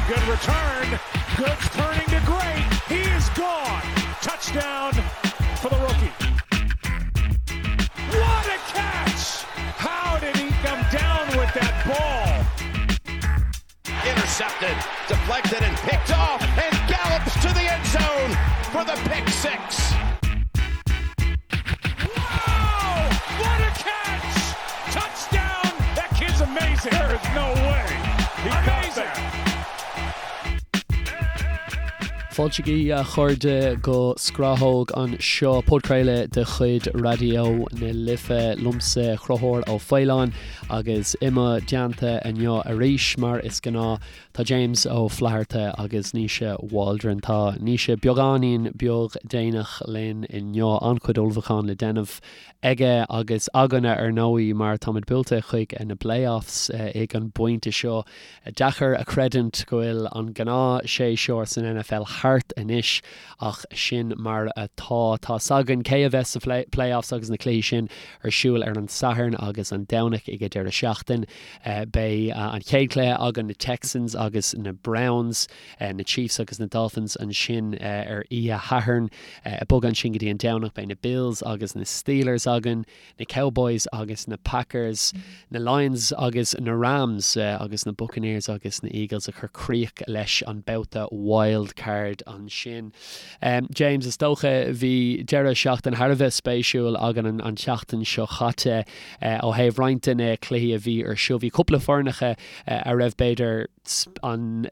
Good return. Good turning to great. He is gone. Touchdown for the rookie. What a catch! How did he come down with that ball? Intercepted, deflected, and picked off, and gallops to the end zone for the pick 6. Wow! What a catch! Touchdown! That kid's amazing. There is no way. He amazing. Fáilte agaibh a chairde go Scrathóg anseo, podchraoladh de chuid Raidió na Life, liomsa Conchúr Ó Faoláin agus i mo dteannta inniu arís mar is gnáth tá James Ó Flatharta agus Naoise Waldron. Tá Naoise beagáinín beag déanach linn inniu, an-chuid ullmhúcháin le déanamh aige agus againne ar ndóigh mar táimid buailte chuig na playoffs ag an bpointe seo. Deacair a chreidiúint go bhfuil an gnáth séasúr san NFL thart anois ach sin mar atá. Tá 's againn cé a bheas sa playoffs agus na cluichí sin ar siúl ar an Satharn agus an Domhnach ag an deireadh seachtain. Beidh an chéad chluiche againn na Texans agus na Browns, na Chiefs agus na Dolphins ansin ar oíche Shathairn. Ag bogadh ansin go dtí an Domhnach beidh na Bills agus na Steelers againn, na Cowboys agus na Packers, na Lions agus na Rams agus na Buccaneers agus na Eagles ag cur críoch leis an babhta wild card ansin. James, is dócha bhí deireadh seachtain thar a bheith spéisiúil againn an tseachtain seo chaite ó thaobh roinnt de na cluichí a bhí ar siúl. Bhí cúpla foirneacha a raibh b'fhéidir an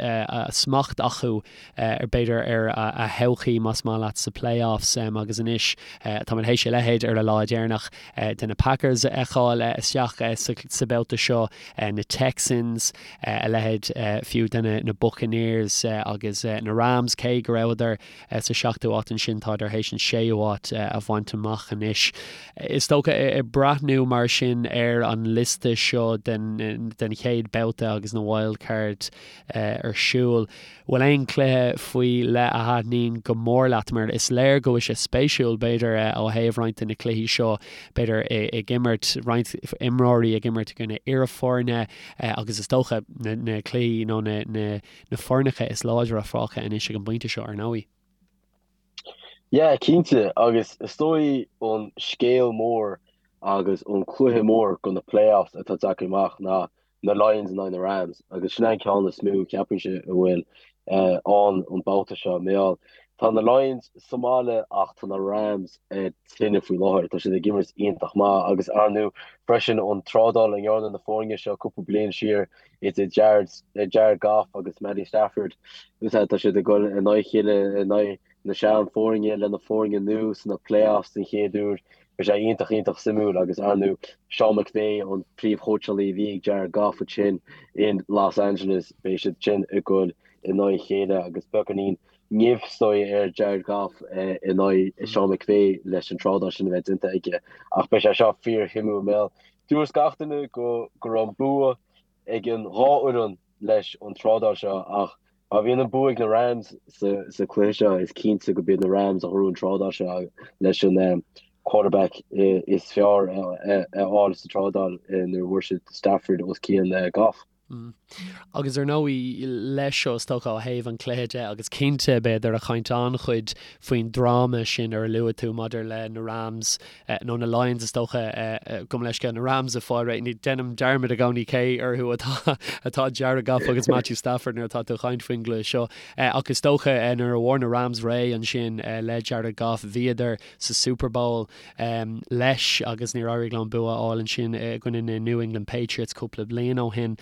smacht acu ar b'fhéidir ar a thodhchaí más maith leat sa playoffs agus anois táimid théis a leithéid ar an lá deireanach de na Packers a fheiceáil isteach sa babhta seo, na Texans, a leithéid fiú de na Buccaneers agus na Rams cé go rabhadar sa seachtú háit ansin tádar théis an séú háit a bhaint amach anois. Is dócha ag breathnú mar sin ar an liosta seo den chéad babhta agus na wild card ar siúl, bhfuil aon chluiche faoi leith a thaitníonn go mór leat? Mar is léir go bhfuil sé spéisiúil b'fhéidir ó thaobh roinnt de na cluichí seo, b'fhéidir ag imirt, roinnt imreoirí ag imirt i gcoinne iarfhoirne agus is dócha na cluichí nó na na foirneacha is láidre fágtha anois ag an bpointe seo, ar ndóigh. Yeah, cinnte, agus is dóigh an scéal mór agus an cluiche mór go na playoffs atá tagtha amach ná na Lions in aghaidh na Rams agus sin an ceann is mó ceapaimse a bhfuil ann an babhta seo. Mar gheall, tá na Lions sa mbaile ach tá na Rams ar tine faoi láthair. Tá siad ag imirt iontach maith agus ar ndóigh freisin an trádáil a ndearna na foirne seo cúpla bliain siar idir Jared, Jared Goff agus Matty Stafford. Tá siad ag dul in aghaidh a chéile in aghaidh na sean-fhoirne le na foirne nua sna playoffs den chéad uair. Beidh sé iontach, iontach suimiúil agus ar ndóigh Sean McVay an príomhchóitseálaí a bhí ag Jared Goff ansin in Los Angeles, beidh siad sin ag dul in aghaidh a chéile agus beagáinín nimh is dóigh ar Jared Goff in aghaidh Sean McVay leis an trádáil sin a bheith déanta aige. Ach beidh sé seo fíorshuimiúil mar gheall dúirt gach duine go go raibh an bua ag an dhá fhoireann leis an trádáil seo ach má bhíonn an bua ag na Rams sa chluiche seo is cinnte go b'iad na Rams a ghnóthaigh an trádáil seo leis an quarterback is fearr a fháil sa trádáil nuair a bhfuair siad Stafford os cionn Goff. Agus ar ndóigh, leis seo, is dócha, ó thaobh an chluiche de, agus cinnte, beifear ag caint an-chuid faoin dráma sin ar a luaigh tú maidir le na Rams, nó na Lions, is dócha, gabh mo leithscéal, na Rams ag fáil réidh. Ní, déanaim dearmad i gcónaí cé orthu atá, atá Jared Goff agus Matthew Stafford nuair atá tú ag caint faoin gcluiche seo. Ach is dócha, nuair a bhfuair na Rams réidh ansin le Jared Goff, bhíodar sa Super Bowl. leis agus níor éirigh leo an bua a fháil ansin i gcoinne na New England Patriots cúpla bliain ó shin.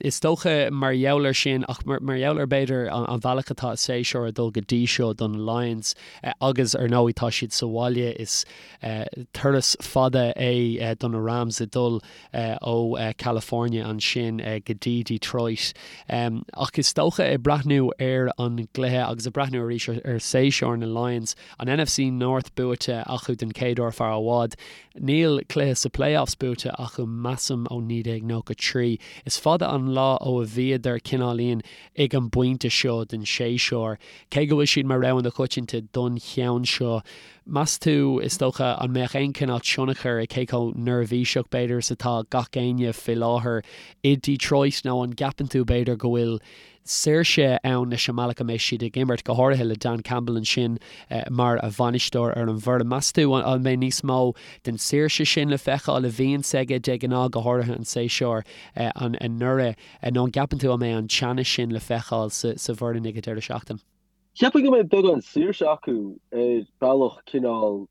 Is dócha mar gheall air sin ach mar gheall ar b'fhéidir an bhealach atá an séasúr ag dul go dtí seo do na Lions agus ar ndóigh tá siad sa bhaile is turas fada é do na Rams ag dul ó California ansin go dtí Detroit. Ach is dócha ag breathnú ar an gcluiche agus ag breathnú arís ar séasúr na Lions, An NFC North buaite acu den chéad uair fear i bhfad. Níl cluiche sa playoffs buaite acu measaim ó 1993. Is fada an lá ó a bhíodar cineáilín ag an bpointe seo den séasúr. Cé go bhfuil siad mar rogha na coitianta don cheann seo, meas tú, is dócha, an mbeadh aon chineál tionchar ag cé chomh neirbhíseach b'fhéidir is atá gach éinne faoi láthair i Detroit nó an gceapann tú b'fhéidir go bhfuil. saoirse ann leis an mbealach a mbeidh siad ag imirt, go háirithe le Dan Campbell ansin mar bhainisteoir ar an bhfoireann. Meas tú an mbeidh níos mó den saoirse sin le feiceáil a bhíonns aige de ghnáth, go háirithe an séasúr anuraidh, nó an gceapann tú an mbeidh an teannas sin le feiceáil sa bhfoireann ag an deireadh seachtaine? Cheapfainn go mbeidh beagán saoirse acu ar bealach cineál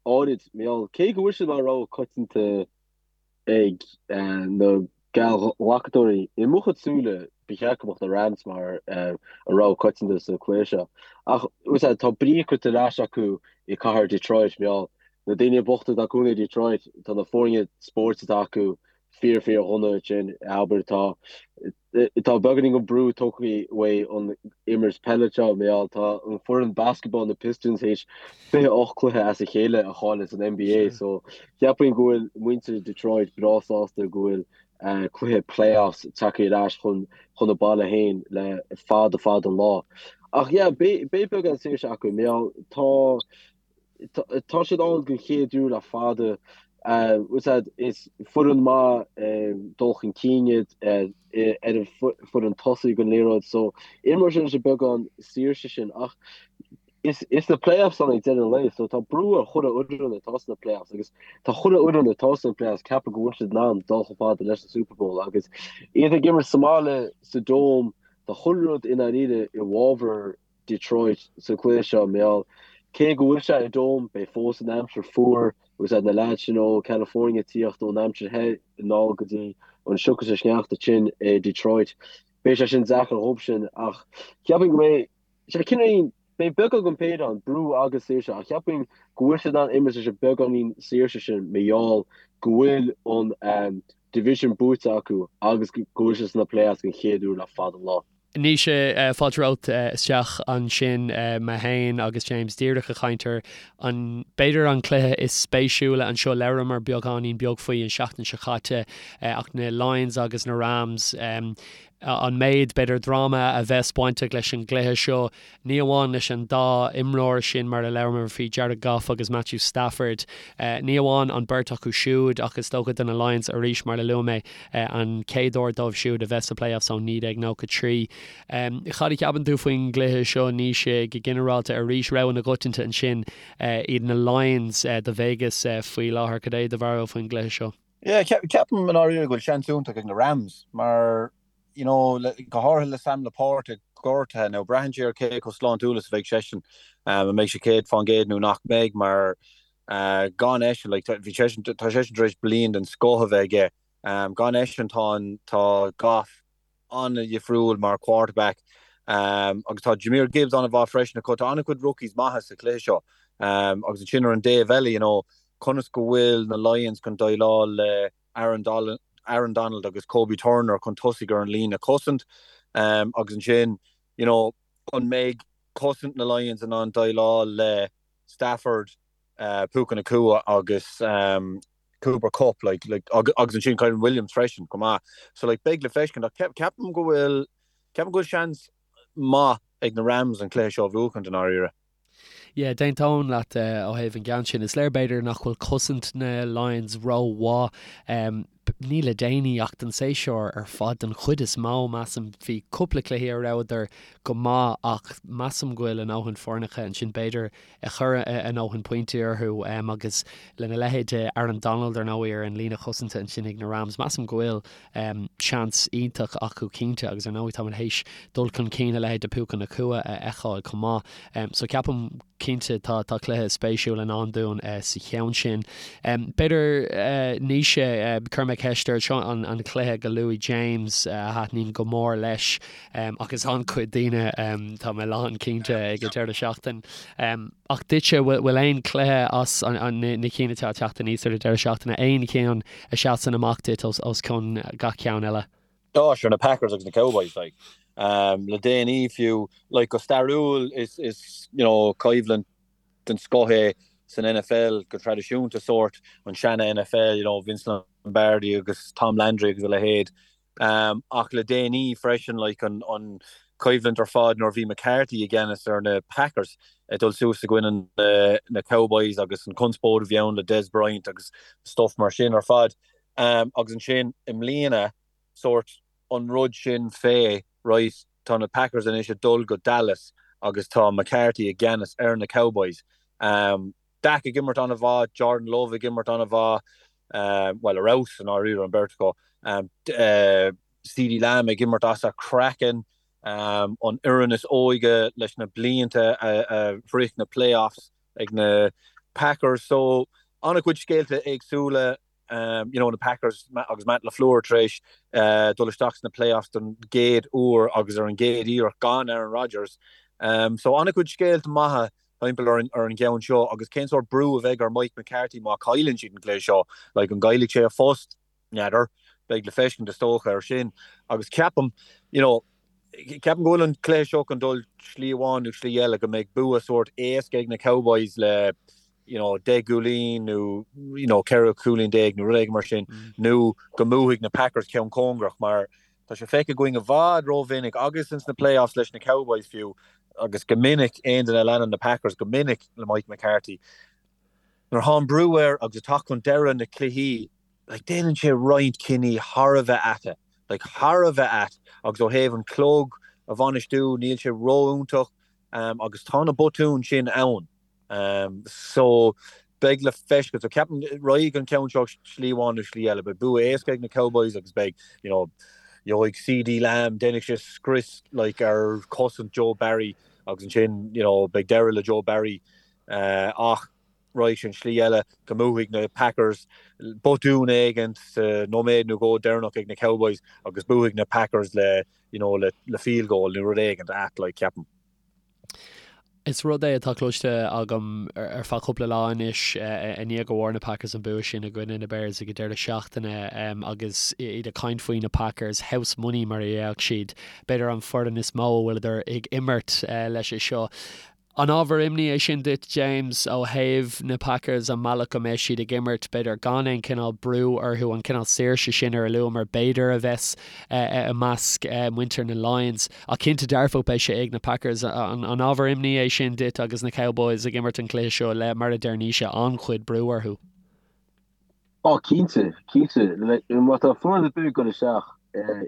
áirid, mar gheall, cé go bhfuil siad mar rogha coitianta ag na geallghlacadóirí, i mo chuid súile, ba cheart go mbeadh na Rams mar an rogha coitianta sa cluiche seo. Ach, tá brí curtha ar ais acu i cathair Detroit, mar gheall, na daoine bochta atá cónaí i Detroit, tá na foirne spóirt atá acu fíor fíor dhona ansin, abair, tá Tá beagáinín den brú tógtha uaidh an imirt peile seo, mar gheall tá an foireann basketball na Pistons théis 28 cluiche as a chéile a chailleadh san NBA so cheapfainn go bhfuil muintir Detroit breá sásta go bhfuil cluiche playoffs tagtha ar ais chun chun a baile féin le fada fada an lá. Ach yeah beidh beagán saoirse acu mar gheall tá Tá siad ann den chéad uair le fada. Is foireann maith dul chun cinn iad ar an foireann tosaigh den liathróid so imreoidh siad leis an beagán saoirse sin ach is na playoffs ann ag deireadh an lae so tá brú ar chuile fhoireann atá sna playoffs agus tá chuile fhoireann atá sna playoffs ceapadh go bhfuil siad in ann dul chomh fada leis an Super Bowl agus iad ag imirt sa mbaile sa Dome tá chuile rud i ndáiríre i bhfabhar Detroit sa chluiche seo, mar gheall cé go bhfuil sé i Dome, beidh fós an aimsir fuar agus na leaids sin ó California ag tíocht ón aimsir the anall go dtí an sioc is an sneachta tinn i Detroit. Beidh sé sin deacair dhóibh sin ach cheapfainn go mbeidh sé cineál, beidh beagán den péire ann, brú agus saoirse, ach cheapfainn go bhfuil siad in ann imirt leis an beagáinín saoirse sin mar gheall go bhfuil an division buaite acu agus go bhfuil siad sna playoffs den chéad uair le fada an lá. Naoise, fáilte romhat isteach ansin. Mé féin agus James díreach ag caint ar an, b'fhéidir an cluiche is spéisiúla anseo. Labhramar beagáinín beag faoi an seachtain seo caite ach na Lions agus na Rams, an méid, b'fhéidir, dráma a bheas bainteach leis an gcluiche seo. Ní amháin leis an dá imreoir sin mar a labhramar faoi, Jared Goff agus Matthew Stafford. Ní amháin an beirt acu siúd ach is dócha do na Lions arís mar a luaigh mé, an chéad uair dóibh siúd a bheith sa playoffs ó 1993. Cad a cheapann tú faoin gcluiche seo, Naoise, go ginearálta? Arís, rogha na gcoitianta ansin iad na Lions do Vegas faoi láthair. Cad é do bharúil faoin gcluiche seo? Yeah, ceapaim i ndáiríre go bhfuil seans iontach ag na Rams mar you know, go háirithe le Sam LaPorta gortaithe, now braitheann sé ar cé chomh sláintiúil is a bheidh seisean, an mbeidh sé 100% nó nach mbeidh, mar gan eisean, like, bhí seisean, tá seisean tar éis bliain den scoth a bheith aige, gan eisean tá an, tá Goff an-dhifriúil mar quarterback, agus tá Jahmyr Gibbs an-mhaith freisin acu, tá an-chuid rookies maithe sa chluiche seo, agus ansin ar an dtaobh eile, you know, conas go bhfuil na Lions chun déileáil le Aaron Aaron Donald agus Kobie Turner chun tosaigh ar an líne cosaint agus ansin you know an mbeidh cosaint na Lions in ann déileáil le Stafford, Puka Nacua agus Cooper Kupp like like agus ansin Kyren Williams freisin chomh maith. So like beidh le feiscint ach ceapaim go bhfuil ceapaim go bhfuil seans maith ag na Rams an cluiche seo a bhuachaint i ndáiríre. Yeah, d'aontóinn leat ó thaobh an gceann sin. Is léir b'fhéidir nach bhfuil cosaint na Lions rómhaith. Ní le déanaí ach don séasúr ar fad den chuid is mó, measaim. Bhí cúpla cluichí a rabhadar go maith ach measaim go bhfuil a ndóthain foirneacha ansin b'fhéidir a chuir a ndóthain pointí orthu agus lena leithéid de Aaron Donald ar ndóigh ar an líne chosanta ansin ag na Rams, measaim go bhfuil seans iontach acu cinnte agus ar ndóigh táimid théis dul chun cinn a leithéid de Puka Nacua a fheiceáil chomh maith. So ceapaim cinnte tá tá cluiche spéisiúil i ndán dúinn sa cheann sin. B'fhéidir Naoise, cuirfidh mé ceist ort, seo an an cluiche go luaigh James a thaitníonn go mór leis agus an-chuid daoine tá mé lán cinnte ag an deireadh seachtain. Ach duitse, bhfuil aon chluiche as na cinn atá ag teacht aníos ar an deireadh seachtaine, aon cheann a sheasann amach duit os cionn gach ceann eile? Á, sure, na Packers agus na Cowboys, like. Le déanaí fiú, like, go stairiúil is, is, you know, coimhlint den scoth é san NFL go traidisiúnta, sórt, an seana-NFL, you know, Vince Lombardi agus Tom Landry agus a leithéid. Ach le déanaí freisin, like, an choimhlint ar fad nuair a bhí McCarthy i gceannas ar na Packers ag dul suas i gcoinne na Cowboys agus an conspóid a bhí ann le Dez Bryant agus stuff mar sin ar fad. Agus ansin i mbliana, sórt an rud sin fé, right? Tá na Packers anois ag dul go Dallas agus tá McCarthy i gceannas ar na Cowboys. Dak ag imirt an-mhaith, Jordan Love ag imirt an-mhaith, bhuel, ar fheabhas i ndáiríre an bheirt acu. CeeDee Lamb ag imirt as a chraiceann, an fhoireann is óige leis na blianta a shroich na playoffs ag na Packers. So, an-chuid scéalta éagsúla. You know, na Packers agus Matt LaFleur tar éis dul isteach sna playoffs don gcéad uair agus ar an gcéad iarracht gan Aaron Rodgers. So an-chuid scéalta maithe timpeall ar an ar an gceann seo agus cén sórt brú a bheidh ar Mike McCarthy má chailleann siad an cluiche seo? Like, an gcaillfidh sé a phost? N'fheadar. Beidh le feiscint is dócha ar sin. Agus ceapaim, you know, ceapaim go bhfuil an cluiche seo chun dul slí amháin nó slí eile, go mbeidh bua sórt éasca ag na Cowboys le you know, 10 gcúilín nó you know, 14 cúilín nó rud éigin mar sin, nó go mbuafaidh na Packers ceann cóngarach mar tá sé feicthe againn i bhfad rómhinic agus ins na playoffs leis na Cowboys fiú agus go minic aon duine a leanann na Packers go minic le Mike McCarthy nuair atá an brú air agus ag teacht chun deireadh na cluichí like déanann sé roinnt cinní thar a bheith ait like thar a bheith ait agus ó thaobh an clog a bhainistiú níl sé ró-iontach um, agus tá na botúin sin ann. So, beidh le feiscint. So, ceapaim, raghaidh an ceann seo slí amháin nó slí eile. Beidh bua éasca ag na Cowboys agus beidh, you know, gheobhaidh CeeDee Lamb, déanfaidh sé scrios like ar chosaint Joe Barry agus ansin, you know, beidh deireadh le Joe Barry. Ach raghaidh sé an slí eile, go mbuafaidh na Packers botún éigin sa nóiméad nó dhó deireanach ag na Cowboys agus buafaidh na Packers le, you know, le field goal nó rud éigin ait like, ceapaim. Is rud é atá cloiste agam ar feadh cúpla lá anois i ndiaidh go bhfuair na Packers an bua sin i gcoinne na Bears ag an deireadh seachtaine agus iad ag caint faoi na Packers, house money mar a déarfadh siad, b'fhéidir an foireann is mó a bhfuileadar ag imirt leis seo. An ábhar imní é sin duit, James, ó thaobh na Packers, an mbealach go mbeidh siad ag imirt, b'fhéidir gan aon chineál brú orthu, an cineál saoirse sin ar a luamar, b'fhéidir, a bheas i measc muintir na Lions? Ach cinnte dearfach beidh sé ag na Packers. An ábhar imní é sin duit agus na Cowboys ag imirt an chluiche seo le, mar a deir Naoise, an-chuid brú orthu? Ó, cinnte, cinnte. Má tá foireann ar bith ag dul isteach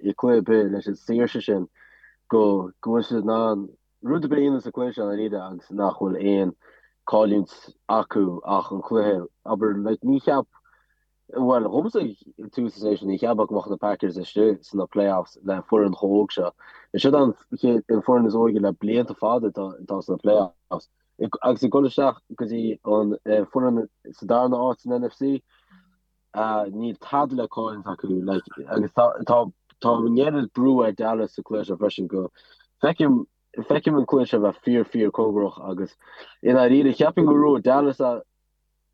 i gcluiche ar bith leis an saoirse sin go bhfuil siad in ann rud ar bith a dhéanamh sa chluiche seo i ndáiríre agus nach bhfuil aon cailliúint acu ach an cluiche, abair, like, ní cheap, bhuel, dhomsa ag tús an séasúir, ní cheapfá go mbeadh na Packers istigh sna playoffs le foireann chomh óg seo. Is siad an chéad, an foireann is óige le blianta fada atá, atá sna playoffs. Agus ag dul isteach go dtí an foireann sa darna áit san NFC, Níl tada le cailliúint acu like agus tá tá tá an oiread brú ar Dallas sa cluiche seo freisin go feicim feicim an cluiche seo bheith fíor fíor cóngarach agus i ndáiríre cheapfainn go ngnóthóidh Dallas é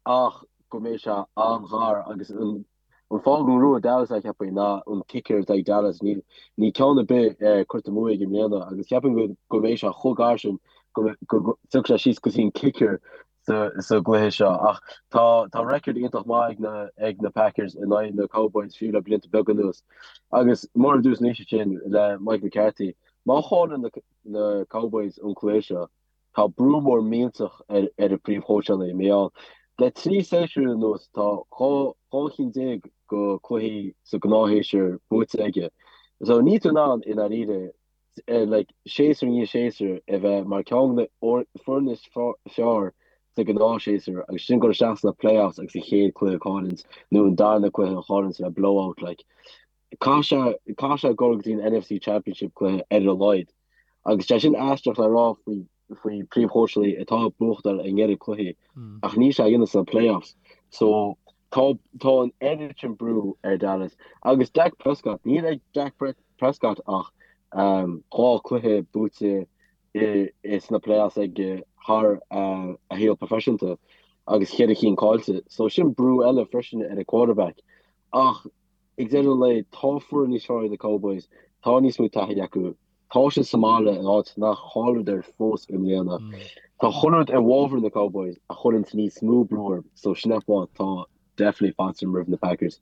ach go mbeidh sé an-ghar agus an an fáth go ngnóthóidh Dallas é cheapfainn ná an kicker atá ag Dallas níl níl ceann ar bith curtha amú aige i mbliana agus cheapfainn go go mbeidh sé chomh gar sin go go go dtiocfaidh sé síos go dtí an kicker sa gcluiche seo ach tá tá record iontach maith ag na ag na Packers in aghaidh na Cowboys fiú le blianta beaga anuas. Agus mar a dúirt Naoise ansin le Mike McCarthy, má chailleann na na Cowboys an cluiche seo, tá brú mór millteach ar ar an príomhchóitseálaí mar gheall le 3 séasúr anuas tá 12 12 chinn de cluichí sa gnáthshéasúr buaite aige. So níl tú in ann i ndáiríre like, séasúr i ndiaidh séasúir a bheith mar ceann de na foirne is fearr sa ghnáthshéasúr agus sin dul isteach sna playoffs agus an chéad cluiche a chailliúint nó an darna cluiche a chailliúint le blowout like. Caithfidh sé caithfidh sé dul go dtí an NFC Championship cluiche ar a laghad. Agus sé sin aisteach le rá faoi faoi príomhchóitseálaí atá ag buachtáil an oiread cluichí ach níl sé á dhéanamh sna playoffs. So tá tá an oiread sin brú ar Dallas agus Dak Prescott níl ag Dak Prescott ach 2 cluiche buaite i sna playoffs aige thar a shaol proifisiúnta agus cheithre chinn caillte. So sin brú eile freisin ar an quarterback. Ach ag deireadh an lae tá foireann níos fearr ag na Cowboys, tá níos mó taithí acu, tá siad sa mbaile in áit nach chailleadar fós i mbliana. Tá chuile rud i bhfabhar na Cowboys a chuireanns níos mó brú orthu so sin an fáth tá definitely faitíos orm roimh na Packers.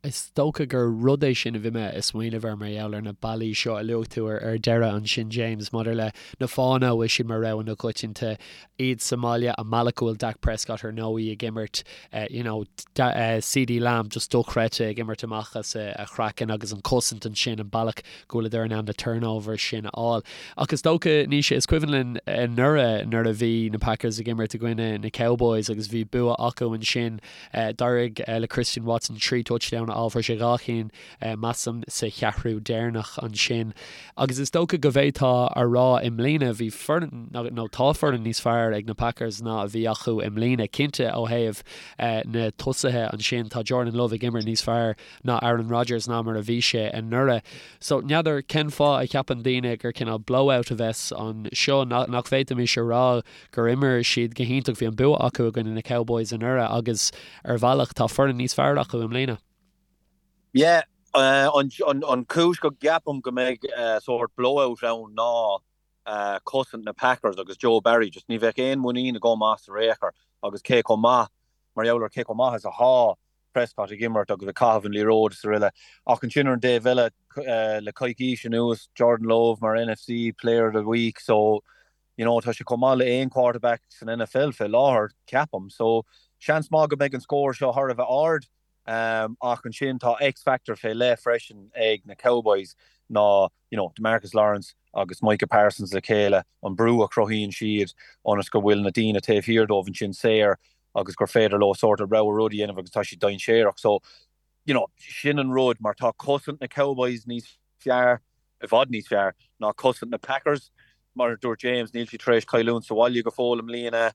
Is dócha gur rud é sin a bhí mé ag smaoineamh air mar gheall ar na bealaí seo a luaigh tú ar deireadh ansin James, maidir le na fáthanna a bhfuil siad mar rogha na coitianta, iad sa mbaile, an bealach go bhfuil Dak Prescott ar ndóigh ag imirt, you know, CeeDee Lamb just dochreidte ag imirt amach as a chraiceann agus an cosaint ansin, an bealach go bhfuileadar in ann na turnovers sin a fháil. Ach is dócha, Naoise, is cuimhin linn anuraidh nuair a bhí na Packers ag imirt i gcoinne na Cowboys agus bhí bua acu ansin, D'éirigh le Christian Watson 3 touchdown a fháil, fuair sé 2 chinn, measaim, sa cheathrú deireanach ansin. Agus is dócha go bhféadfá a rá i mbliana, bhí foireann, nó tá foireann níos fearr ag na Packers ná a bhí acu i mbliana. Cinnte ó thaobh na tosaithe ansin, tá Jordan Love ag imirt níos fearr ná Aaron Rodgers ná mar a bhí sé anuraidh. So, n'fheadar cén fáth a cheapann daoine gur cineál blowout a bheas anseo, nach bhféadfaimis a rá gur imir siad go hiontach, bhí an bua acu i gcoinne na Cowboys anuraidh agus ar bhealach tá foireann níos fearr acu i mbliana. Yeah, an chúis go gceapaim go mbeidh sórt blowout ann ná cosaint na Packers agus Joe Barry, just ní bheadh aon mhuinín agam as ar aon chor agus cé chomh maith, mar gheall ar cé chomh maith is athá Prescott ag imirt agus ag caitheamh an liathróid is araile. Ach ansin ar an dtaobh eile, le coicís anuas, Jordan Love mar NFC Player of the Week, so You know, tá sé chomh maith le aon quarterback san NFL fé láthair, ceapaim. So, seans maith go mbeidh an scór seo thar a bheith ard. Ach ansin tá X-factor fé leith freisin ag na Cowboys ná, you know, DeMarcus Lawrence agus Micah Parsons le chéile, an brú a chruthaíonn siad ionas go bhfuil na daoine taobh thiar dóibh ansin saor agus gur féidir leo sórt a rogha rud a dhéanamh agus tá siad dainséarach. So, you know, sin an rud mar tá cosaint na Cowboys níos fearr, i bhfad níos fearr, ná cosaint na Packers. Mar a dúirt James, níl siad tar éis cailliúint sa bhaile go fóill i mbliana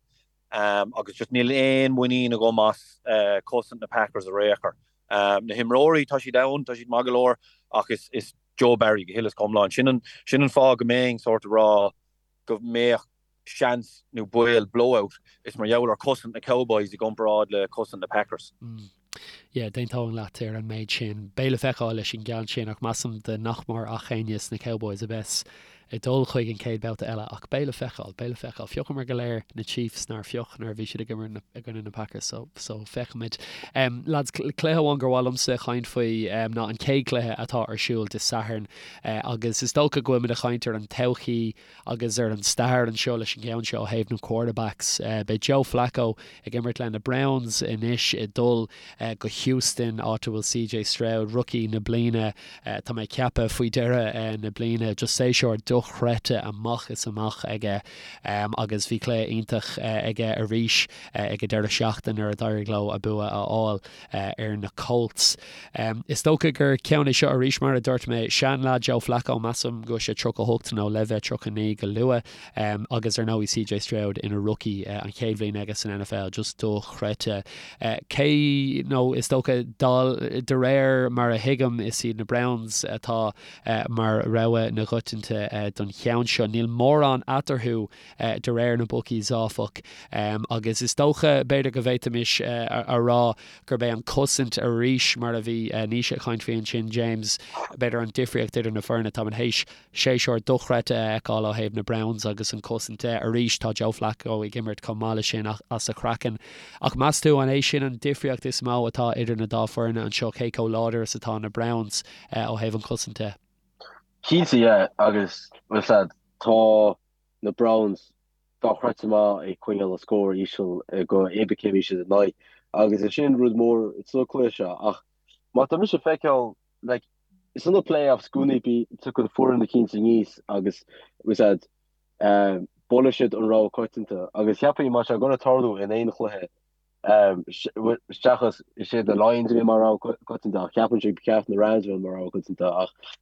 agus just níl aon mhuinín agam as cosaint na Packers ar aon chor. Na himreoirí, tá siad ann, tá siad maith go leor ach is Joe Barry go huile is go hiomlán. Sin an, sin an fáth go mbeinn sórt ag rá go mbeadh seans nó baol blowout, is mar gheall ar cosaint na Cowboys i gcomparáid le cosaint na Packers. Yeah, d'aontóinn leat ar an méid sin. Beidh le feiceáil leis an gceann sin ach measaim de nach mór ach éinne sna Cowboys a bheas ag dul chuig an chéad babhta eile ach beidh le feiceáil, beidh le feiceáil. Phiocamar go léir na Chiefs nár phioc nuair a bhí siad ag imirt i gcoinne na Packers so, so feicfimid. Um, lads, cluiche amháin gur mhaith liomsa chaint faoi um, ná an chéad chluiche atá ar siúl Dé Sathairn uh, agus is dócha go bhfuilimid ag caint ar an todhchaí Agus ar an stair anseo leis an gceann seo ó thaobh na quarterbacks, beidh Joe Flacco ag imirt le na Browns anois ag dul go Houston, áit a bhfuil CJ Stroud, rookie na bliana, tá mé ag ceapadh, faoi dheireadh na bliana. Just séasúr dochreidte amach is amach aige agus bhí cluiche iontach aige arís ag an deireadh seachtaine nuair a d'éirigh leo a bua a fháil. ar na Colts. Is dócha gur ceann é seo arís, mar a dúirt mé, seanleaid Joe Flacco, measaim go bhfuil sé 38 nó le bheith 39 go luath, agus ar ndóigh CJ Stroud ina rookie, an chéad bhliain aige san NFL, just dochreidte. Cé, nó is dócha, de réir mar a thuigim, is iad na Browns atá mar rogha na gcoitianta don cheann seo. Níl mórán eatarthu de réir na bookies, áfach, agus is dócha, b'fhéidir go bhféadfaimis a rá gurb é an cosaint arís, mar a bhí Naoise ag caint faoi ansin, James, b'fhéidir an difríocht idir na foirne. Táimid théis séasúr dochreidte a fheiceáil ó thaobh na Browns agus an cosaint de. Arís, tá Joe Flacco ag imirt chomh maith leis sin as a chraiceann. Ach meas tú an é sin an difríocht is mó atá idir na dá foirne anseo, cé chomh láidir is atá na Browns ó thaobh an chosaint de? Cinnte, yeah, agus, bhuel, tá na Browns dochreidte maith ag coinneáil an scór íseal go cibé cé a bhí siad in aghaidh agus is sin rud mór sa cluiche seo ach má tá mise ag feiceáil like sna playoffs i gcónaí bí tiocfaidh foireann eicínt aníos agus was that buailfidh siad an rogha coitianta agus cheapfainn má tá sé gonna tarlú in aon chluiche seachas is iad na Lions a bhí mar rogha coitianta ach cheapfainnse ba cheart na Rams a bheith mar rogha coitianta ach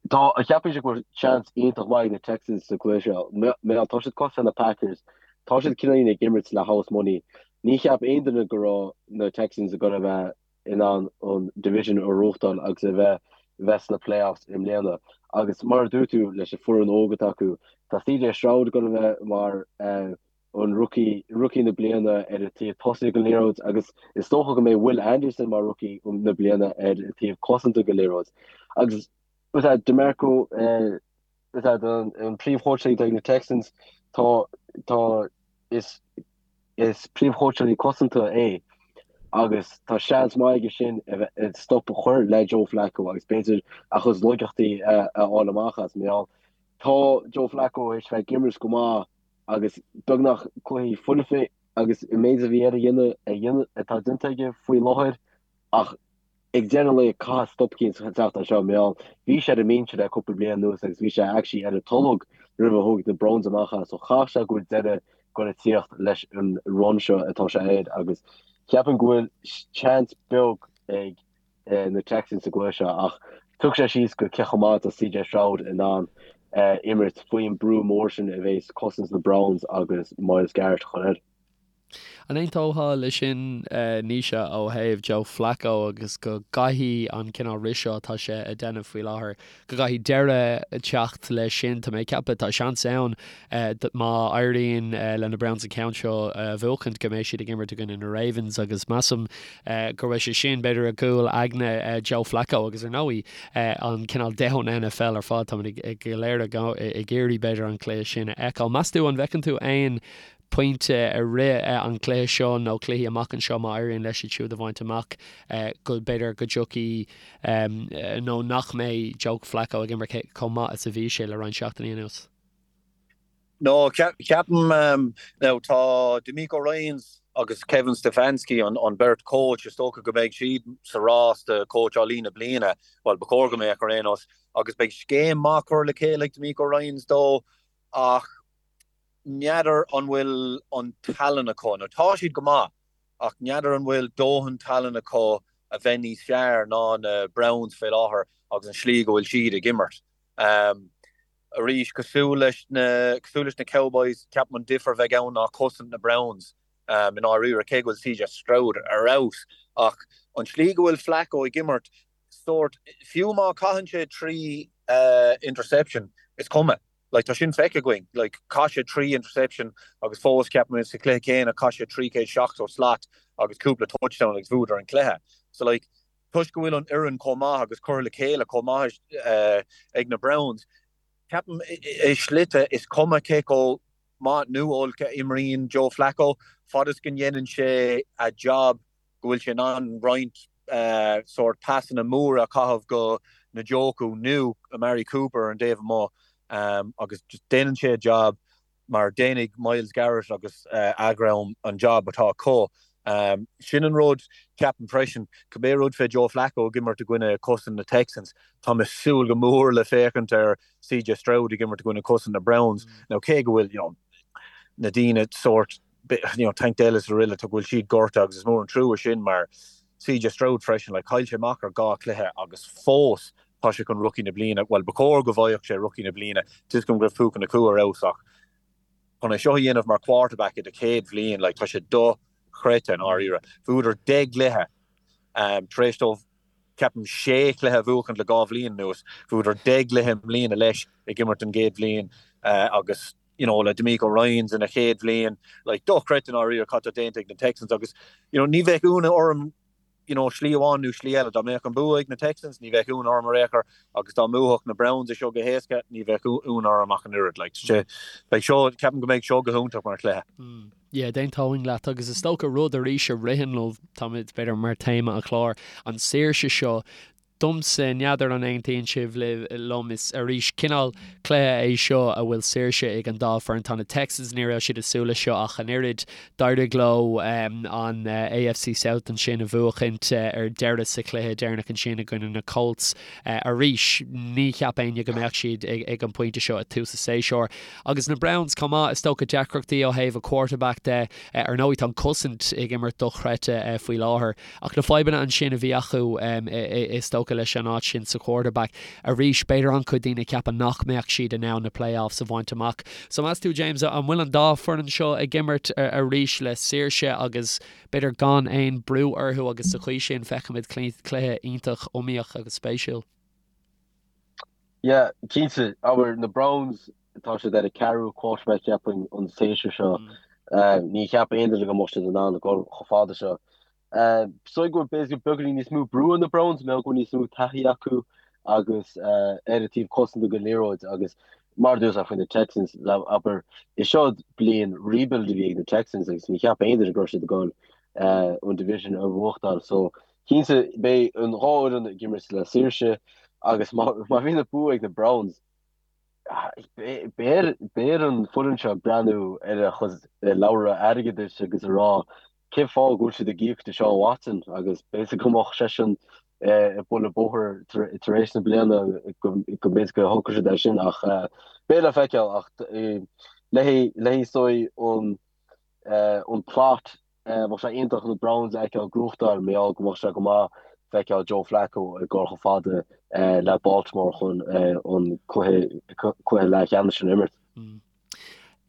Tá, cheapfainnse go bhfuil seans iontach maith ag na Texans sa chluiche seo. Mar tá siad cosúil le na Packers, tá siad cineáilín ag imirt le house money. Ní cheap aon duine go raibh na Texans ag dul a bheith in ann an division a ghnóthachtáil agus a bheith bheith sna playoffs i mbliana. Agus mar a dúirt tú, leis an foireann óg atá acu, tá CJ Stroud ag dul a bheith mar an rookie, rookie na bliana ar an taobh tosaigh den liathróid agus is dócha go mbeidh Will Anderson mar rookie na bliana ar an taobh cosanta den liathróid. Agus is é DeMeco, is é an príomhchóitseálaí atá ag na Texans, tá, tá, is, is príomhchóitseálaí cosanta é. Agus tá seans maith aige sin a bheith stop a chur le Joe Flacco agus b'fhéidir a chuid laigeachtaí a fháil amach as. Mar gheall, tá Joe Flacco théis bheith ag imirt go maith agus beagnach cluichí foirfe agus an méid a bhí air a dhéanamh a dhéanamh atá déanta aige faoi láthair ach ag deireadh an lae caithfidh stop eicínt teacht as seo mar gheall bhí sé ar an mbinse le cúpla bliain anuas agus bhí sé actually ar an tolg roimh a thóg na Browns amach as so chaithfidh sé go bhfuil deireadh ag goil a tíocht leis an run seo atá sé air agus ceapaim go bhfuil seans beag ag na Texans sa gcluiche seo ach tiocfaidh sé síos go cé chomh maith atá CJ Stroud in ann imirt faoin brú mór sin a bhéas cosaint na Browns agus Myles Garrett a chur air. An aontófá leis sin, Naoise, ó thaobh Joe Flacco agus go gcaithfidh an cineál rith seo atá sé a déanamh faoi láthair, go gcaithfidh deireadh teacht leis sin? Tá mé ag ceapadh, tá seans ann má éiríonn le na Browns an ceann seo a bhuachaint go mbeidh siad ag imirt i gcoinne na Ravens agus measaim go raibh sé sin b'fhéidir i gcúl aigne Joe Flacco agus ar ndóigh an cineál domhan NFL ar fad, táimid go léir ag iarraidh b'fhéidir an cluiche sin a fheiceáil. Meas tú an bhfeiceann tú aon pointe i rith an chluiche seo nó cluichí amach anseo má éiríonn leis iad siúd a bhaint amach go b'fhéidir go dtiocfaidh nó nach mbeidh Joe Flacco ag imirt chomh maith is a bhí sé le roinnt seachtainí anuas. No, ceapaim now tá DeMeco Ryans agus Kevin Stefanski an beirt coach is dócha go mbeidh siad sa rás do cóitseálaí na bliana, bhuel ba chóir go mbeadh ar aon nós, agus beidh scéim maith curtha le chéile ag DeMeco Ryans dó ach n'fheadar an bhfuil an tallann acu, nó tá siad go maith, ach n'fheadar an bhfuil dóthain tallann acu a bheith níos fearr ná na Browns fé láthair agus an slí go bhfuil siad ag imirt. Arís, cosúil leis na, cosúil leis na Cowboys, ceapaim an difear a bheidh ann ná cosaint na Browns i ndáiríre, cé go bhfuil CJ Stroud ar fheabhas, ach an slí go bhfuil Flacco ag imirt, sórt, fiú má caitheann sé 3 interception, is cuma. Like, tá sin feicthe againn. Like, chaith sé 3 interception agus fós, ceapaim, sa chluiche céanna, chaith sé 370 slat agus cúpla touchdown agus bhuadar an cluiche. So, like, toisc go bhfuil an fhoireann chomh maith agus curtha le chéile chomh maith ag na Browns, ceapaim, i slite, is cuma cé chomh maith nó olc a imríonn Joe Flacco, fad is go ndéanann sé a job, go bhfuil sé in ann roinnt sórt pasanna móra a chaitheamh go Njoku nó Amari Cooper ar an dtaobh amuigh agus just déanann sé a job mar déanfaidh Myles Garrett agus a dhream an job atá acu. Sin an rud, ceapaim freisin, cibé rud fé Joe Flacco ag imirt i gcoinne cosaint na Texans, tá mé ag súil go mór le féachaint ar CJ Stroud ag imirt i gcoinne cosaint na Browns. Now cé go bhfuil, you know, na daoine sórt you know, Tank Dell is araile, tá go bhfuil siad gortaithe agus is mór an trua sin mar CJ Stroud freisin, like, chaill sé amach ar dhá chluiche agus fós tá sé chun rookie na bliana, bhuel, ba chóir go bhfaigheadh sé rookie na bliana, tá 'fhios agam go raibh Puka Nacua ar fheabhas ach chun é seo a dhéanamh mar quarterback i do chéad bhliain, like, tá sé dochreidte i ndáiríre. Bhuadar 10 gcluiche um, tar éis dóibh ceapaim sé chluiche a bhuachaint le dhá bhliain anuas, bhuadar 10 gcluiche i mbliana leis ag imirt an gcéad bhliain uh, agus you know, le DeMeco Ryans ina chéad bhliain, like, dochreidte i ndáiríre cad tá déanta ag na Texans agus, you know, ní bheadh ionadh orm, you know, slí amháin nó slí eile, dá mbeadh an bua ag na Texans, ní bheadh ionadh orm ar aon chor agus dá mbuafadh na Browns é seo go héasca, ní bheadh ionadh orm ach an oiread, like, sé, beidh seo, ceapaim go mbeidh seo go hiontach mar chluiche. Mm. Yeah, d'aontóinn leat agus is dócha rud arís a ritheann liom, táimid b'fhéidir mar téama an chláir, an saoirse seo Domsa, n'fheadar an aontaíonn sibh liom, is arís cineál cluiche é seo a bhfuil saoirse ag an dá foireann. Tá na Texans, ní raibh siad ag súil leis seo ach an oiread. D'éirigh leo an AFC South ansin a bhuachaint ar deireadh sa chluiche deireanach ansin i gcoinne na Colts. Arís, ní cheap éinne go mbeadh siad ag an bpointe seo ag tús an tséasúir. Agus na Browns chomh maith, is dócha deacrachtaí ó thaobh a quarterback de. Ar ndóigh tá an cosaint ag imirt dochreidte faoi láthair. Ach na fadhbanna ansin a bhí acu, is dócha, leis an áit sin sa quarterback, arís, b'fhéidir an-chuid daoine ag ceapadh nach mbeadh siad in ann na playoffs a bhaint amach. So meas tú, James, an bhfuil an dá foireann seo ag imirt arís le saoirse agus b'fhéidir gan aon brú orthu agus sa chaoi sin feicfimid cluiche iontach iomaíoch agus spéisiúil? Yeah, cinnte. Abair, na Browns, tá siad ar a ceathrú quarterback ceapaim an séasúr seo. Ní cheap aon duine go mbeadh siad in ann a dhul chomh fada seo. Is dóigh go bhfuil b'fhéidir beagáinín níos mó brú ar na Browns, mar go bhfuil níos mó taithí acu agus ar an taobh cosanta den liathróid agus mar a dúirt faoi na Texans, abair, is seo bliain rebuild a bhí ag na Texans agus ní cheap aon duine go raibh siad ag dul. an division a bhuachtáil. So cinnte beidh an dhá fhoireann ag imirt le saoirse agus má bhíonn an bua ag na Browns, beidh ar an foireann seo breathnú ar a chuid leabhra airgeadais agus a rá cén fáth go bhfuil siad ag íoc Deshaun Watson agus b'fhéidir go mbeadh seisean ag bualadh bóthair tar éis na bliana go mb'fhéidir go thógfadh siad é sin ach beidh le feiceáil ach le haghaidh is dóigh an an plot bheadh sé iontach na Browns a fheiceáil ag gnóthachtáil mar gheall go mbeadh sé go maith feiceáil Joe Flacco ag dul chomh fada le Baltimore chun an cluiche cluiche leathcheannais sin a imirt.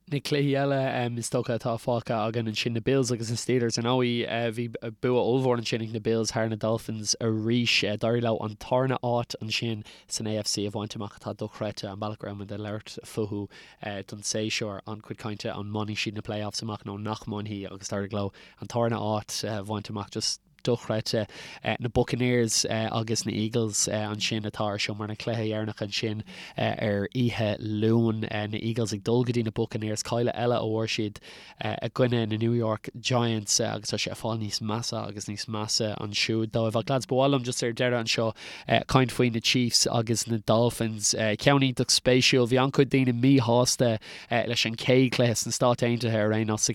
Na cluichí eile is dócha atá fágtha againn ansin, na Bills agus na Steelers. Ar ndóigh, bhí bua ollmhór ansin ag na Bills thar na Dolphins arís. D'éirigh leo an tarna áit ansin san AFC a bhaint amach atá dochreidte, an bealach go raibh muid ag labhairt fúthu don séasúr, an-chuid cainte an mbainfidh siad na playoffs amach nó nach mbainfidh agus d'éirigh leo an tarna áit a bhaint amach. Just dochreidte. Na Buccaneers agus na Eagles ansin atá ar siúl mar na cluiche dheireanach ansin ar oíche Luain. Na Eagles ag dul go dtí na Buccaneers, cailleadh eile a fuair siad i gcoinne na New York Giants agus tá sé ag fáil níos measa agus níos measa ansiúd dóibh. Ach lads, ba mhaith liom just ar deireadh anseo caint faoi na Chiefs agus na Dolphins. Ceann iontach spéisiúil. Bhí an-chuid daoine míshásta leis an chéad chluiche sna Stáit Aontaithe ar aon nós,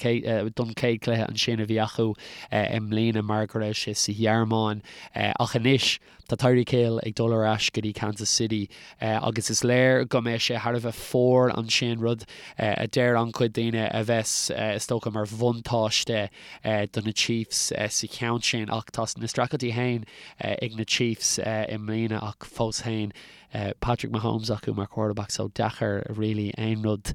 don chéad chluiche ansin a bhí acu i mbliana mar go raibh sé sa Ghearmáin. Ach anois tá Tyreek Hill ag dul ar ais go dtí Kansas City agus is léir go mbeidh sé thar a bheith fuar ansin, rud a deir an-chuid daoine a bheas is dócha mar bhuntáiste do na Chiefs sa cheann sin. Ach tá na streachailtí féin ag na Chiefs i mbliana ach fós féin Patrick Mahomes acu mar quarterback so deacair really aon rud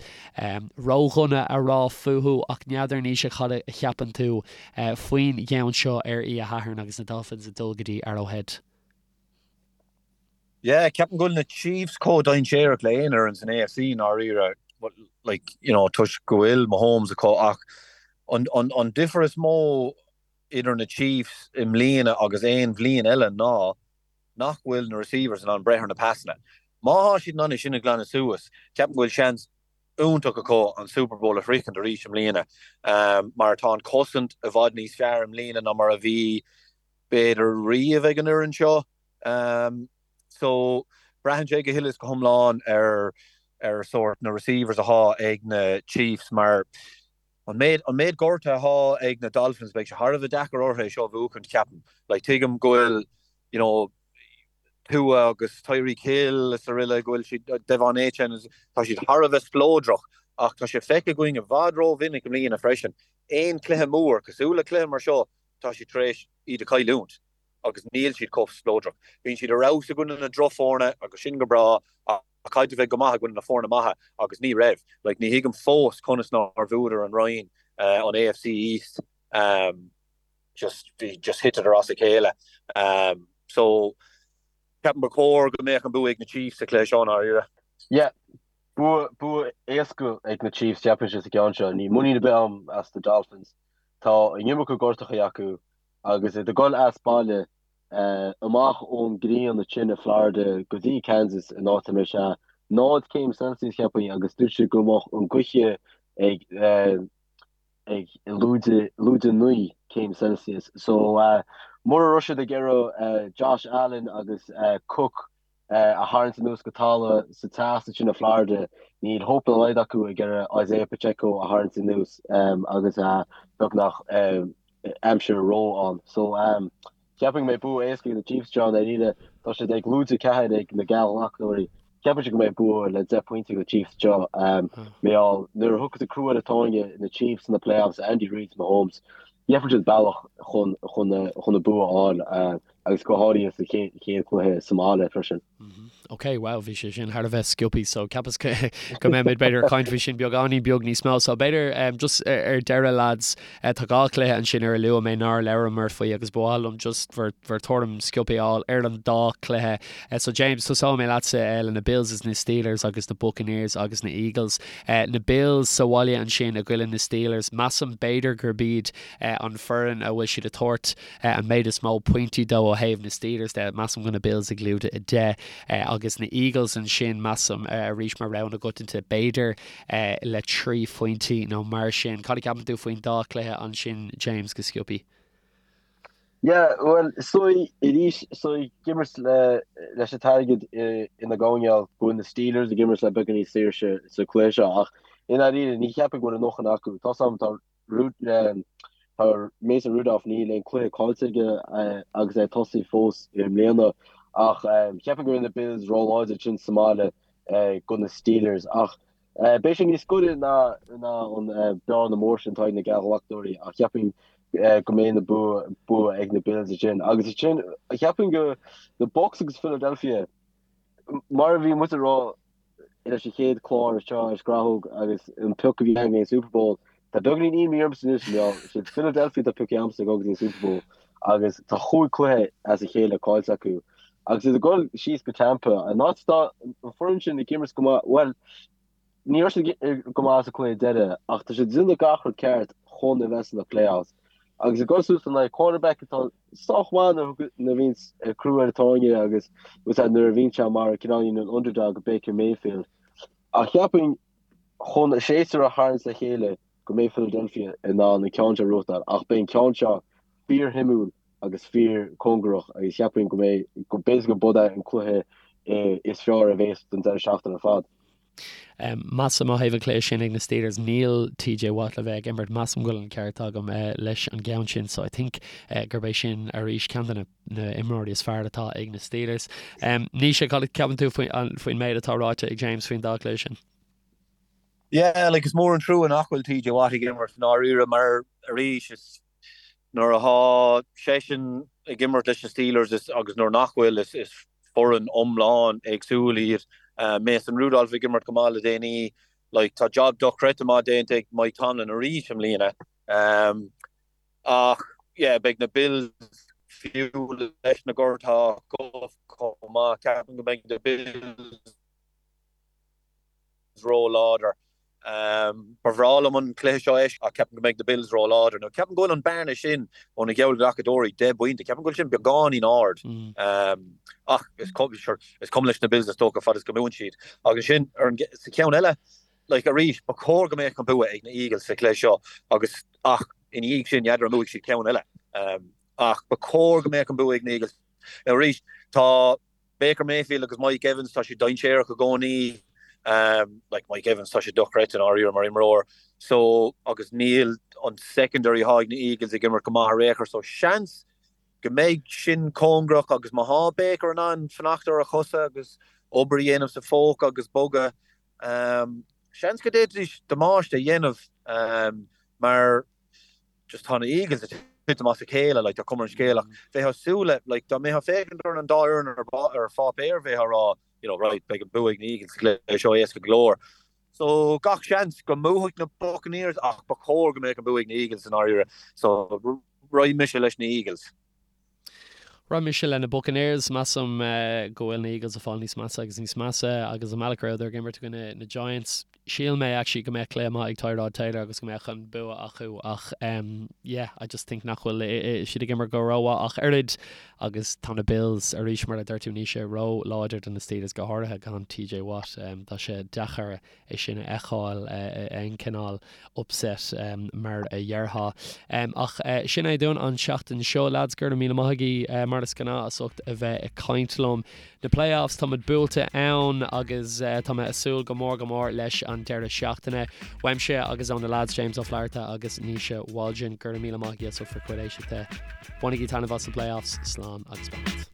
ródhona a rá fúthu ach n'fheadar Naoise cad a cheapann tú faoin gceann seo ar oíche Shathairn agus na Dolphins ag dul go dtí Arrowhead. Yeah, ceapaim go bhfuil na Chiefs chomh dainséarach le aon fhoireann san AFC i ndáiríre, like, you know, toisc go bhfuil Mahomes acu ach an, an, an difear is mó idir na Chiefs i mbliana agus aon bhliain eile ná nach bhfuil na receivers in ann breith ar na pasanna. Má thá siad in ann é sin a ghlanadh suas, ceapaim go bhfuil seans iontach acu an Super Bowl a shroichint arís i mbliana mar tá an cosaint i bhfad níos fearr i mbliana ná mar a bhí b'fhéidir riamh ag an fhoireann seo. So braitheann sé go huile is go hiomlán ar ar sórt na receivers athá ag na Chiefs mar an méid an méid gortuithe athá ag na Dolphins beidh sé thar a bheith deacair orthu é seo a bhuachaint ceapaim. Like tuigim go bhfuil you know, Tua agus Tyreek Hill is araile, go bhfuil siad, De'Von Achane, tá siad thar a bheith spleodrach ach tá sé feicthe againn i bhfad rómhinic i mbliana freisin, aon chluiche mór, cosúil le cluiche mar seo, tá siad tar éis iad a chailliúint agus níl siad chomh spleodrach. Bíonn siad ar fheabhas i gcoinne na drochfhoirne agus sin go breá ach caithfidh tú bheith go maith i gcoinne na foirne maithe agus ní raibh. Like, ní thuigim fós conas nár bhuadar an roinn, an AFC East. Just bhí just thiteadar as a chéile. So ceapaim ba chóir go mbeadh an bua ag na Chiefs sa chluiche seo i ndáiríre. Yeah, bua bua éasca ag na Chiefs cheapfainnse sa gceann seo. Níl muinín ar bith agam as na Dolphins. Tá an iomarca gortachaí acu agus iad ag dul as baile amach ón ngrian ansin i Florida go dtí Kansas in áit a mbeidh sé 0 céim Celsius cheapfainn agus dúirt siad go mbeadh an gaoth ag ag lúide lúide 9 céim Celsius. So mura raibh siad ag iarraidh Josh Allen agus Cook a tharraingt anuas go talamh sa teas ansin i Florida, níl hope dá laghad acu ag iarraidh Isaiah Pacheco a tharraingt anuas agus beagnach aimsir ró ann. So Cheapfainn go mbeidh bua éasca ag na Chiefs anseo, i ndáiríre. Tá siad ag lúide 4 ag na geallghlacadóirí. Cheapfainnse go mbeidh bua le 10 pointe ag na Chiefs anseo. Mar gheall, nuair a thiocfas an crú ar an tairne, na Chiefs sna playoffs, Andy Reid, Mahomes, gheobhaidh siad bealach chun chun an bua a fháil agus go háirithe sa chéad chluiche sa mbaile freisin. Ok, wow, bhí sé sin thar a bheith sciobtha, so ceapas go mbeimid b'fhéidir ag caint faoi sin beagáinín beag níos mó. So b'fhéidir um, just ar deireadh lads, uh, tá dhá chluiche ansin ar a luaigh mé nár labhramar faoi agus ba mhaith liom just bhur, bhur tuairim sciobtha a fháil ar an dá chluiche. Uh, so James, tosóidh mé leatsa uh, le na Bills is na Steelers agus na Buccaneers agus na Eagles. Uh, na Bills sa bhaile ansin i gcoinne na Steelers, measaim b'fhéidir gurb iad uh, an foireann a bhfuil siad ag tabhairt an méid is mó pointí dó ó thaobh na Steelers de. Measaim go na Bills ag lúide 10 agus na Eagles ansin, measaim, arís mar rogha na gcoitianta, b'fhéidir le 3 phointí nó mar sin. Cad a cheapann tú faoin dá chluiche ansin, James, go sciobtha? Yeah, bhuel, is dóigh arís, is dóigh ag imirt le leis an t-airgead ina gcoinneáil go bhfuil na Steelers ag imirt le beagán níos saoirse sa chluiche seo ach i ndáiríre ní cheapfainn go bhfuil a ndóthain acu. Tá 's agam tá tá Mason Rudolph níl aon cluiche caillte aige agus é ag tosaí fós i mbliana ach cheapfainn go bhfuil na Bills róláidir ansin sa mbaile do na Steelers ach Beidh sé níos gaire ná an bearna mór sin atá ag na geallghlacadóirí ach cheapfainn go mbeidh na bua ag na Bills ansin. Agus ansin cheapfainn go na Bucs agus Philadelphia mar a bhí muid ag rá leis an chéad chlár seo ar Scrathóg agus an pioc a bhí againn an Super Bowl tá beagáinín imní ormsa anois mar siad Philadelphia atá pioctha agamsa ag dul go dtí an Super Bowl agus tá chúig cluiche as a chéile caillte acu. Agus iad ag dul síos go Tampa, an áit atá an foireann sin ag imirt go maith, bhuel, ní raibh siad go maith sa cluiche deiridh ach tá siad ag déanamh gach rud ceart chun a bheith sna playoffs. Agus ag dul suas in aghaidh quarterback atá sách maith nuair a bhíonn crú ar an tairne agus nuair a bhíonn sé mar cineáilín an underdog Baker Mayfield. Ach cheapfainn chun a séasúr a tharraingt le chéile go mbeidh Philadelphia in ann an ceann seo a ghnóthachtáil ach beidh an ceann seo fíorshuimiúil agus fíorchóngarach agus cheapfainn go mbeidh, go b'fhéidir go b'é an cluiche is fearr a bhéas don deireadh seachtaine ar fad. Measaim ó thaobh an chluiche sin ag na Steelers, níl TJ Watt le bheith ag imirt, measaim go bhfuil an ceart agam leis an gceann sin so I think gurb é sin arís ceann de na imreoirí is fearr atá ag na Steelers. Naoise, cad a cheapann tú faoin méid atá ráite ag James faoin dá chluiche sin? Yeah, like is mór an trua nach bhfuil TJ Watt ag imirt i ndáiríre mar arís is nuair atá seisean ag imirt leis na Steelers is agus nuair nach bhfuil is is foireann iomlán éagsúil iad. Mason Rudolph ag imirt go maith le déanaí, like tá job dochreidte maith déanta ag Mike Tomlin arís i mbliana. Ach yeah beidh na Bills fiú leis na gortuithe acu chomh maith, ceapaim go mbeidh na Bills ró-láidir. Ba bhreá liom an cluiche seo a fheiscint ach ceapaim go mbeidh na Bills ró-láidir. Now ceapaim go bhfuil an bearna sin ó na geallghlacadóirí, 10 bpointe, ceapaim go bhfuil sin beagáinín ard. Ach is cuma leis na Bills is dócha fad is go mbuann siad. Agus ansin ar an sa cheann eile, like arís, ba chóir go mbeadh an bua ag na Eagles sa chluiche seo agus ach ina dhiaidh sin n'fheadar an mbuafaidh siad ceann eile. Ach ba chóir go mbeadh an bua ag na Eagles. Now arís, tá Baker Mayfield agus Mike Evans, tá siad dainséarach i gcónaí. Like Mike Evans, tá sé dochreidte i ndáiríre mar imreoir. So, agus níl an secondary atá ag na Eagles ag imirt go maith ar aon chor. So, seans go mbeidh sin cóngarach agus má thá Baker in ann fanacht ar a chosa agus obair a dhéanamh sa phóca agus bogadh, seans go d'fhéadfaidís damáiste a dhéanamh mar just tá na Eagles ag titim as a chéile, like, tá cuma ar an scéal ach bheifeá ag súil le, like, dá mbeifeá ag féachaint ar an dá fhoireann ar, ar pháipéar bheifeá ag rá, you know, right, beidh an bua ag na Eagles sa gcluiche seo éasca go leor. So gach seans go mbuafaidh na Buccaneers ach ba chóir go mbeadh an bua ag na Eagles i ndáiríre. So raghaidh mise leis na Eagles. Raghaidh mise le na Buccaneers. Measaim go bhfuil na Eagles ag fáil níos measa agus níos measa agus an bealach a rabhadar ag imirt i gcoinne na Giants. Shíl mé actually go mbeadh cluiche maith ag Tyrod Taylor agus go mbeadh an bua acu ach yeah, I just think nach bhfuil siad ag imirt go rómhaith ach oiread agus tá na Bills arís mar a dúirt tú Naoise ró-láidir do na Steelers go háirithe gan TJ Watt. Tá sé deacair é sin a fheiceáil aon cineál upset mar a dhéarfá. Ach sin é dúinn an tseachtain seo, lads. Go raibh míle maith agaibh mar is gnáth as ucht a bheith ag caint liom. Na playoffs, táimid buailte ann agus tá mé ag súil go mór go mór leis an deireadh seachtaine. Uaimse agus ó na lads James Ó Flatharta agus Naoise Waldron, go raibh míle maith agaibh as ucht bhur gcuid éisteachta. Bainigí taitneamh as na playoffs. Slán agus beannacht.